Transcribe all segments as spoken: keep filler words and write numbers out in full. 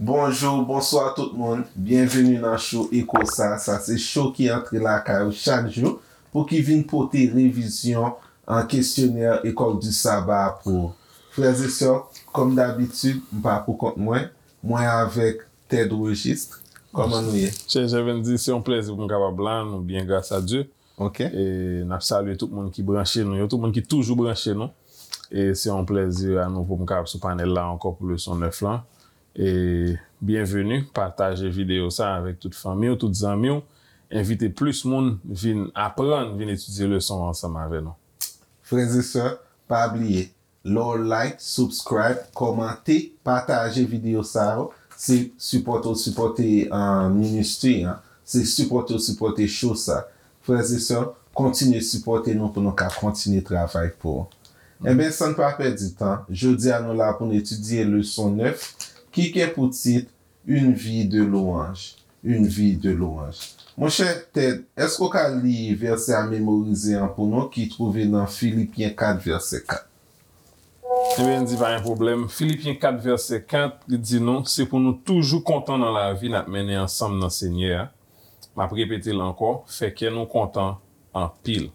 Bonjou, bonswa tout moun. Byenveni nan show Eko sa. Sa se show ki antre lakay ou chak jou pou ki vin pote revizyon an kesyonè École du Sabbat pou ou. Frè e sè, kòm dabitid, m pa pou kont mwen. Mwen avèk Ted Registre. Kòman nou ye? Chè Jèvendy, se yon plèzi pou m kapab la. Nou byen, gras a Dye. Ok. E n ap salye tout moun ki branche nou yo, tout moun ki toujou branche nou. E se yon plèzi anouvo pou m kapab sou panèl la ankò pou leson nèf lan. E byenveni, pataje videyo sa avèk tout fanmi w, tout zanmi w. Envite plis moun vin aprann, vin etidye leson an ansanm avè nou. Frè e sè, pa bliye, lè w like, subscribe, kòmante, pataje videyo sa yo, se sipòte w sipòte, uh, ministry an, se sipòte w sipòte show sa. Frè e sè, kontinye sipòte nou pou nou ka kontinye travay pou ou. Enben, san n pa pèdi tan, jodi a nou la pou n etidye leson nèf ki gen pou tit Une vie de louange. Une vie de louange. Monchè Ted, èske w ka li vèsè a memorize an pou nou ki twouve nan Filipyen kat vèsè kat? Ebyen, di pa gen pwoblèm. Filipyen kat vèsè kat, li di nou, se pou nou toujou kontan nan lavi n ap mennen ansanm nan Senyè a. M ap repete l ankò, fè kè nou kontan anpil.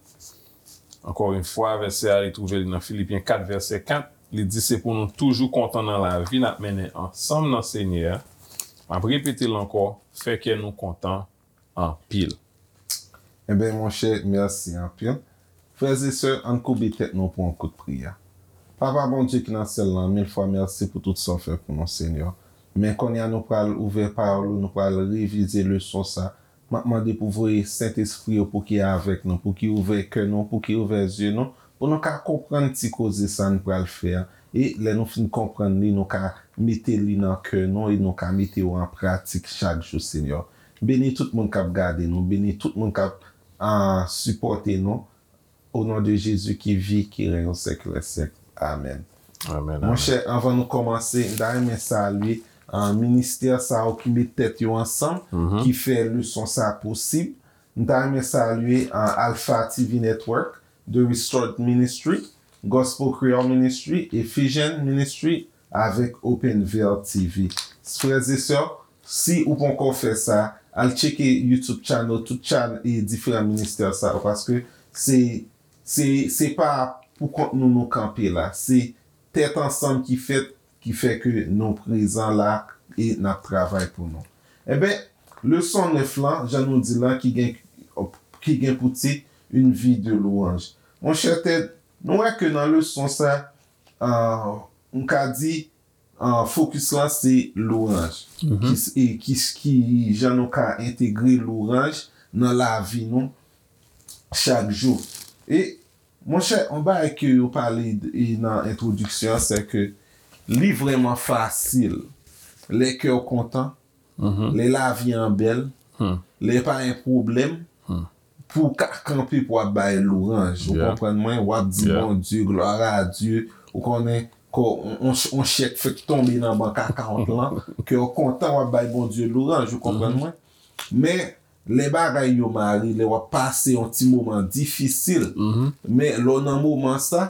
Ankò yon fwa, vèsè a, li twouve li nan Filipyen kat vèsè kat. Li di se pou nou toujou kontan nan lavi n ap mennen ansanm nan Senyè a. M ap repete l ankò, fè kè nou kontan anpil. Enben, monchè, mèsi anpil. Frè e sè, ann koube tèt nou pou yon kout priyè. Papa Bondye ki nan syèl lan, mil fwa mèsi pou tout sa w fè pou nou, Senyè. Men kounye a nou pral ouvè pawòl ou, nou pral revize leson sa. M ap mande pou voye Sentespri ou pou ki avèk nou, pou ki ouvè kè nou, pou ki ouvè zye nou, pou nou ka konprann ti koze sa n pral fè a. E lè nou fin konprann li, nou ka mete li nan kè nou e nou ka mete yo an pratik chak jou, Senyè. Beni tout moun k ap gade nou, beni tout moun k ap, ah, sipòte nou. O non de Jezi ki vi, ki renn o syèk dè syèk. Amèn. Amèn, amèn. Monchè, anvan nou kòmanse, m ta renmen salye, ah, ministè sa yo ki met tèt yo ansanm, ki fè leson sa posib. M ta renmen salye, ah, Alpha T V Network, The Restored Ministry, Gospel Creole Ministry, Ephesian Ministry, avèk Open Veil T V. Frè e sè, si ou poko fè sa, al tcheke YouTube channel, tout chan-, e diferan ministè sa yo, paske se, se, se pa pou kont nou nou kanpe la. Se tèt ansanm ki fèt, ki fè ke nou prezan la e n ap travay pou nou. Enben, leson nèf lan, jan nou di lan, ki gen, ki gen pou tit Une vie de louange. Monchè Ted, nou wè ke nan leson sa, ah, m ka di, ah, fokis lan se louanj. Ki s-, e ki s-, ki jan nou ka entegre louanj nan lavi nou chak jou. E, monchè, yon bagay ke yo pale d-, e nan entwodiksyon an, se ke li vrèman fasil lè kè w kontan, lè lavi an bèl, lè pa gen pwoblèm, pou w ka kanpe pou w ap bay louanj. Ou konprann mwen? W ap di Bondye, gloire à Dieu. Ou konnen, kò, on, on, on chèk fèk tonbe nan bank account lan, ke w kontan, w ap bay Bondye louanj. Ou konprann mwen? Men, lè bagay yo mare, lè w ap pase yon ti moman difisil, men lè w nan moman sa,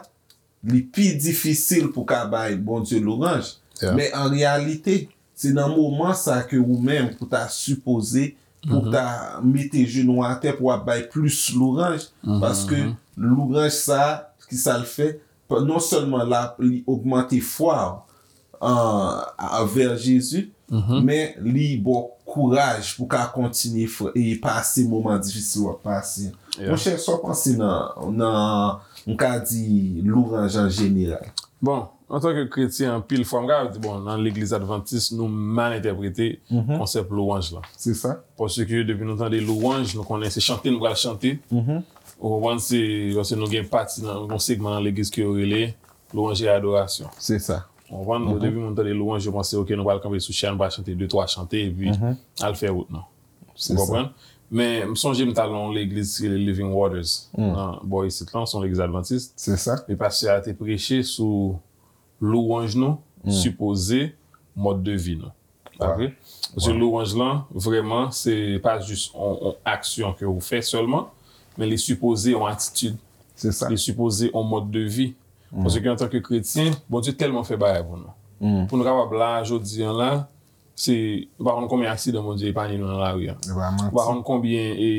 li pi difisil pou ka bay Bondye louanj. Men an reyalite, se nan moman sa ke ou menm pou ta sipoze, pou ta mete jenou atè, pou w ap bay plis louanj, paske louanj sa, ki sa l fè? Pa-, non sèlman la, li ogmante fwa w, ah, avè Jezi, men li ba w kouraj pou ka kontinye fè, e pase moman difisil w ap pase. Monchè, sa w panse nan, nan, m ka di, louanj an jeneral? Bon, antanke kretyen, anpil fwa, m ka di, bon, nan legliz advantis, nou mal entèprete konsèp louanj lan. Se sa. Paske depi nou tande louanj, nou konnen se chante nou pral chante. Ou konprann, se, paske nou gen pati nan, yon segman nan legliz ke yo rele louanj e adorasyon. Se sa. Ou konprann? Depi moun tande louanj, yo panse, ok, nou pral kanpe sou chè a, nou pral chante de twa chante, epi al fè wout nou. Ou konprann? Men, m sonje m t al nan yon legliz ki rele Living Waters, nan bò isit lan, se yon legliz advantis. Se sa. E pastè a te preche sou louanj nou, sipoze mòd de vi nou. Pa vre? Paske louanj lan, vrèman, se pa jis on, on aksyon ke ou fè sèlman, men li sipoze on atitid. Se sa. Li sipoze on mòd de vi. Paske antanke kretyen, Bondye tèlman fè bagay pou nou. Pou nou kapab la, jodi an la, Se, nou pa konn konbyen aksidan Bondye epanye nou nan lari a. Nou pa konn konbyen e,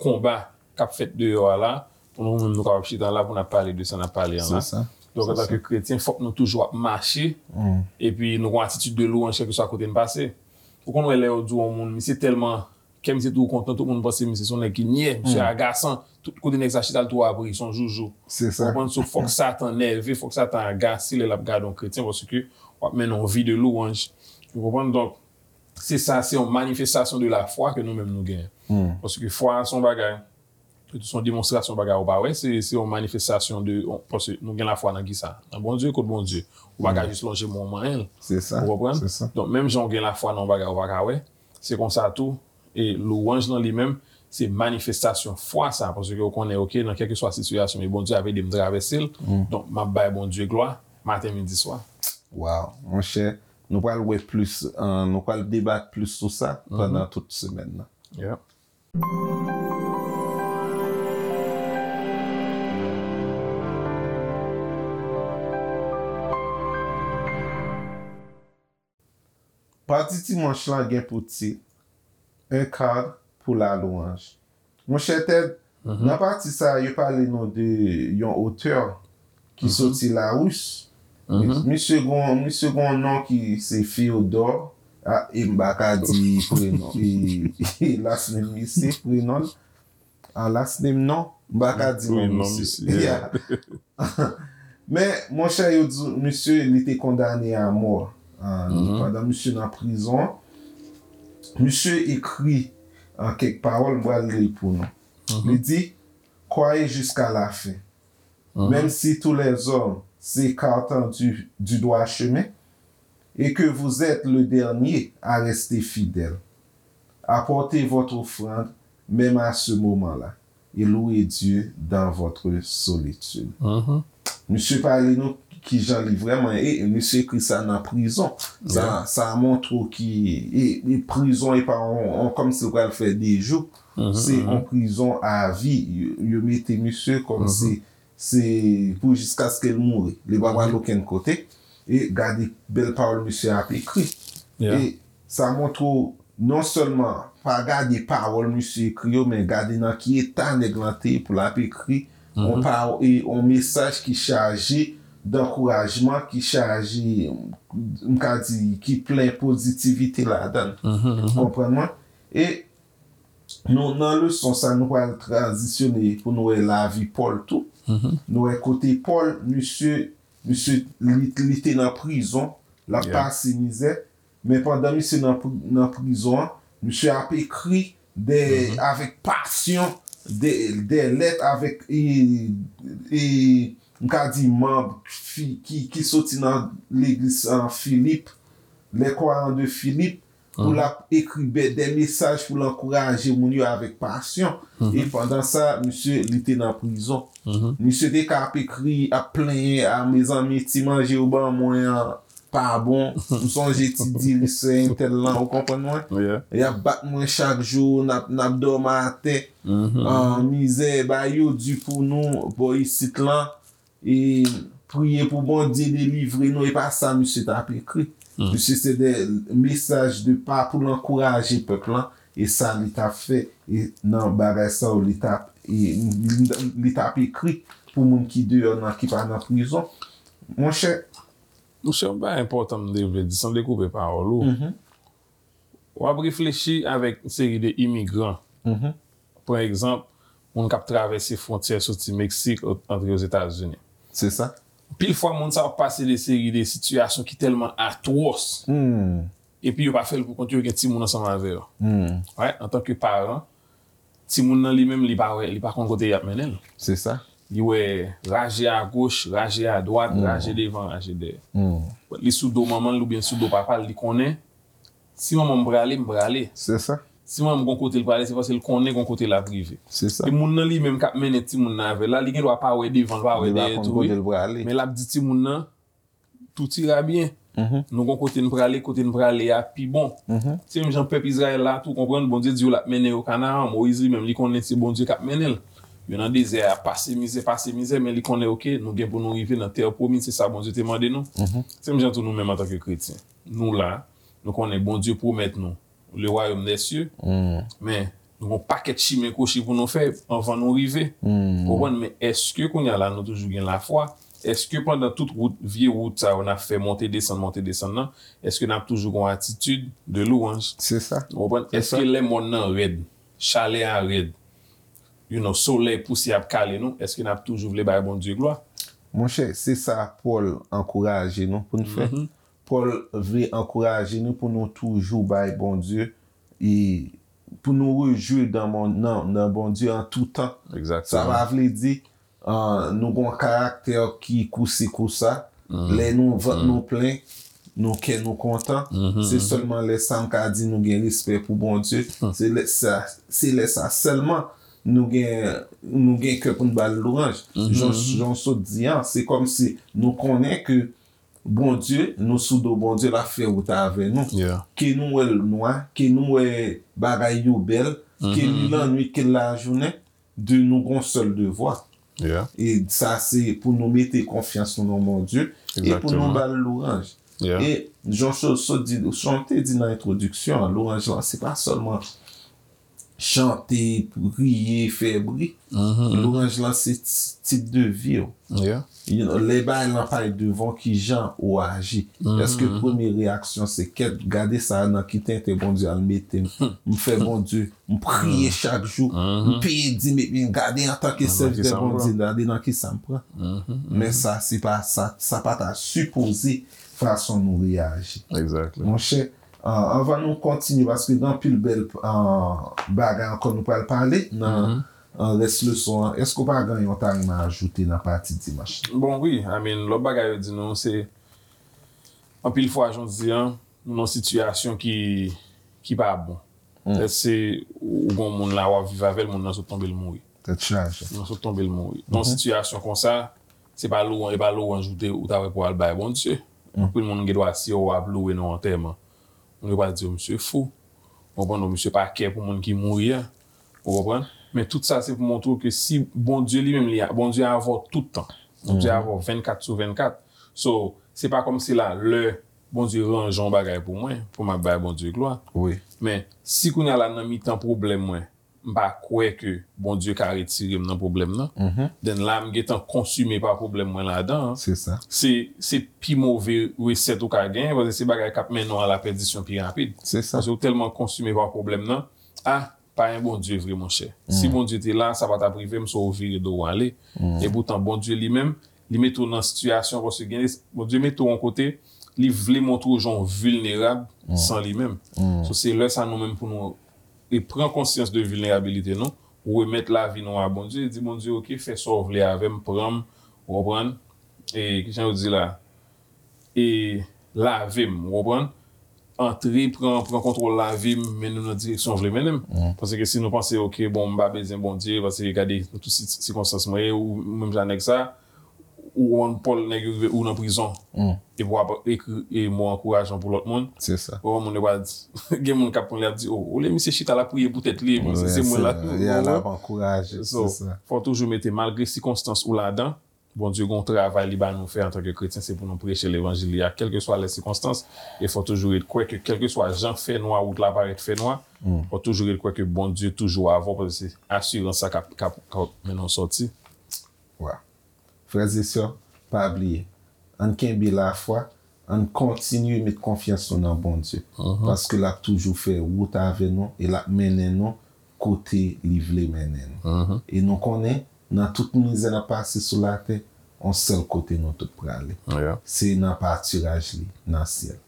konba k ap fèt deyò a la, pou nou menm nou kapab chita la pou n ap pale de sa n ap pale an la. Donk, antanke kretyen, fòk nou toujou ap mache, epi nou gen yon atitid de lwanj kèlkeswa kote n pase. Ou konn wè lè yo di yon moun, misye tèlman, kè misye toujou kontan, tout moun panse misye se yon nèg ki nyè, misye agasan, tout kote nèg sa chita, l toujou ap ri, se yon joujou. Ou konprann? So, fòk Satan nève, fòk Satan agase lè l ap gade yon kretyen, paske w ap mennen yon vi de lwanj. Ou konprann? Donk, se sa, se yon manifestasyon de lafwa ke nou menm nou genyen. Paske fwa a se yon bagay, se yon demonstrasyon bagay ou pa wè, se, se yon manifestasyon de, paske nou gen lafwa nan kisa? Nan Bondye, kot Bondye? Ou pa ka jis lonje men w manyen l. Ou konprann? Donk, menm jan w gen lafwa nan yon bagay ou pa ka wè, se konsa tou, e lwanj lan li menm, se manifestasyon fwa sa, paske ou konnen, oke, nan kèlkeswa sitiyasyon, e Bondye ap ede m travèse l, donk, m ap bay Bondye glwa, maten, midi, swa. Waw, monchè, nou pral wè plis, eh, nou pral debat plis sou sa pandan tout semèn nan. Yeah. Pati dimanch lan gen pou tit, Un cadre pour la louange. Monchè Ted, nan pati sa a, yo pale nou de yon otè ki soti Laris. Misye gon, misye gon non ki se Féodor. Ah, e m pa ka di prenon. E, e last name misye, prenon. Ah, last name non. M pa ka di non misye. Yeah. Men, monchè, yo di misye, li te kondane a mò. Ah, pandan misye nan prizon, misye ekri, ah, kèk pawòl, m pral li l pou nou. Li di, Croyez jusqu'à la fin. Même si tous les hommes s'écartent du, du droit chemin, et que vous êtes le dernier à rester fidèle, apportez votre offrande même à ce moment-là, et louez Dieu dans votre solitude. Misye pale nou kijan li vrèman, e misye ekri sa nan prizon. Sa, sa montre w ki, e, e prizon e pa on, on, kòmsi l pral fè de jou. Se on prizon a vi. Yo, yo mete misye kòmsi se pou jiskaske l mouri. Li pa pral okenn kote. E gade bèl pawòl misye ap ekri. E sa montre w non sèlman pa gade pawòl misye ekri yo, men gade nan ki eta nèg lan te ye pou l ap ekri on paw-, e, on mesaj ki chaje dankourajman, ki chaje, m ka di, ki plen pozitivite ladan l. Konprann mwen? E nou, nan leson sa, nou pral tranzisyone pou nou wè lavi Pòl tou. Nou wè kote Pòl, misye, misye, li, li te nan prizon, l ap pase mizè, men pandan misye nan pri-, nan prizon an, misye ap ekri de, avèk pasyon, de, de lèt avèk, e, e, m ka di manm fi-, ki, ki soti nan legliz, ah, Filip, les croyants de Philippe, pou l ap ekri bè-, de mesaj pou l ankouraje moun yo avèk pasyon. E pandan sa, misye, li te nan prizon. Misye te ka ap ekri, ap plenyen, a, mezanmi, ti manje yo ban mwen an pa bon. M sonje ti diri sè entèl lan, ou konprann mwen? Y ap bat mwen chak jou, n ap, n ap dòmi atè. Ah, mizè, bagay yo di pou nou, bò isit lan. E priye pou Bondye delivre nou, e pa sa misye t ap ekri. Misye se de mesaj de pa pou l ankouraje pèp lan, e sa li t ap fè, e nan bagay sa yo li t ap, e li, li t ap ekri pou moun ki deyò nan, ki pa nan prizon. Monchè. Monchè, yon bagay enpòtan m te vle di, san dekoupe pawòl ou. W ap reflechi avèk yon seri de imigran. Pran egzanp, moun k ap travèse fwontyè soti Meksik, antre Ozetazini. Se sa. Anpil fwa, moun sa yo ap pase de seri de sitiyasyon ki tèlman atwòs. Epi yo pa fè l pou kont yo, gen timoun ansanm avè yo. Wè, antanke paran, timoun nan li menm, li pa wè, li pa konn kote y ap mennen l. Se sa. Li wè raje agoch, raje adwat, raje devan, raje dèyè. Li sou do manman l oubyen sou do papa l, li konnen si manman m prale, m prale. Se sa. Si manman m gon kote l prale, se paske l konnen gon kote l ap rive. Se sa. E moun nan li menm k ap mennen timoun nan avè l la, li gen dwa pa wè devan l, pa wè dèyè tou, wi. Men l ap di timoun nan, tout ira bien. Nou gon kote n prale, kote n prale a pi bon. Se menm jan pèp Izrayèl la tou, konprann, Bondye di yo l ap mennen yo Kanaran. Moyiz li menm, li konnen se Bondye k ap mennen l. Yo nan dezè a, pase mizè, pase mizè, men li konnen, oke, nou gen pou nou rive nan tè pwomiz, se sa Bondye te mande nou. Se menm jan tou nou menm antanke kretyen. Nou la, Nou konnen Bondye pwomèt nou le royaume des cieux, men nou gon pakèt chimen kwochi pou nou fè anvan nou rive. Ou konprann? Men èske kounye a la nou toujou gen lafwa? Èske pandan tout wout, vye wout sa yo n ap fè monte desann, monte desann nan, èske n ap toujou gon atitid de louwanj? Se sa. Ou konprann? Èske lè mòn nan rèd, chalè a rèd, you know, solèy pouse ap kale nou, èske n ap toujou vle bay Bondye glwa? Monchè, se sa Pòl ankouraje nou pou n fè. Pòl vle ankouraje nou pou nou toujou bay Bondye e pou nou rejwi nan, nan, nan Bondye an tou tan. Sa pa vle di uh, nou gon karaktè ki kousi kousa. Lè nou vant nou plen, nou kè nou kontan. Se sèlman lè sa m ka di nou gen respè pou Bondye. Se lè sa, se lè sa sèlman nou gen, nou gen kè pou n ba l louranj. Jan, jan w sot di an, se kòmsi nou konnen ke Bondye, nou sou do Bondye, l ap fè wout avè nou. Ke nou wè l nwa, ke nou wè bagay yo bèl, ke li lannwit, ke l lajounen, de nou gon sèl devwa. E sa se pou nou mete konfyans nou nan Bondye e pou nou ba l louranj. E jan w sot di, jan w te di nan entwodiksyon an, louranj lan se pa sèlman chante, priye, fè bri. Louranj lan se tip de vi w. Lè bagay lan pa t devan w, kijan ou aji? Èske premye reyaksyon se kèt, gade sa nan ki tenten Bondye al mete m? M fè Bondye, m priye chak jou, m peye dim epi gade antanke sèvitè Bondye, gade nan kisa m pran. Men sa se pa sa, sa pa ta sipoze fason nou reyaji. Monchè, anvan nou kontinye, paske gen anpil bèl bagay ankò nou pral pale nan rès leson an. Èske w pa gen yon ta renmen ajoute nan pati dimanch? Bon, wi, I mean, lòt bagay yo di nou se anpil fwa, jan w di an, nou nan sitiyasyon ki, ki pa bon. Lè se ou gon moun la w ap viv avè l, moun nan sot tonbe l mouri. Tèt chaje. Moun nan sot tonbe l mouri. Nan sitiyasyon konsa, se pa louwanj, e pa louwanj ou te, ou ta wè pou al bay Bondye. Anpil moun gen dwa si yo ap louwe nan antèman. Moun yo pral di yo misye fou. Ou konprann? Ou misye pa kè pou moun ki mouri a. Ou konprann? Men tout sa se pou montre w ke si Bondye li menm li, Bondye avè w tout tan. Bondye avè w vennkat sou vennkat. So, se pa kòmsi la lè Bondye ranje yon bagay pou mwen, pou m ap bay Bondye glwa. Men, si kounye a la nan mitan pwoblèm mwen, m pa kwè ke Bondye ka retire m nan pwoblèm nan, then la m gentan konsime pa pwoblèm mwen ladan an. Se, se pi move resèt ou ka genyen, paske se bagay k ap mennen w a la pèdisyon pi rapid. Paske ou tèlman konsime pa pwoblèm nan, a, pa gen Bondye vre, monchè. Si Bondye te la, sa pa t ap rive m, so ou vire do w ale. Epoutan, Bondye li menm, li mete w nan sitiyasyon, paske gen, Bondye mete w yon kote, li vle montre w jan w vilnerab san li menm. So, se lè sa nou menm pou nou e pran konsyans de vilnerabilite nou, remèt lavi nou a Bondye, e di Bondye, oke, fè sa w vle avè m, pran m, ou konprann? E, kijan yo di la? E lave m, ou konprann? Antre, pran, pran kontwòl lavi m, mennen m nan direksyon w vle mennen m. Paske si nou panse, oke, bon, m pa bezwen Bondye, paske gade nan tout si-, sikonstans mwen ye, ou menm jan nèg sa, ou konprann Pòl, nèg yo rive, ou nan prizon. Epi w ap ekri e mo ankourajan pou lòt moun. Se sa. Ou konprann, moun yo pral di, gen moun k ap pran li ap di, o, olye misye chita l ap priye pou tèt li, bon, se, se mwen la. L ap ankouraje. So, fò w toujou mete, malgre sikonstans ou ladan, Bondye gen yon travay li ba nou fè antanke kretyen, se pou nou preche levanjil li a, kèlkeswa lè sikonstans, e fò toujou ret kwè ke kèlkeswa jan fè nwa, wout la parèt fè nwa, fò toujou ret kwè ke Bondye toujou avè w, paske se asirans sa k ap, k ap, k ap mennen w sòti. Wa. Frè e sè, pa bliye, ann kenbe lafwa, ann kontinye met konfyans nou nan Bondye, paske l ap toujou fè wout avè nou e l ap mennen nou kote li vle mennen nou. E nou konnen, nan tout mizè n ap pase sou latè, yon sèl kote nou tout prale. Se nan patiraj li, nan syèl.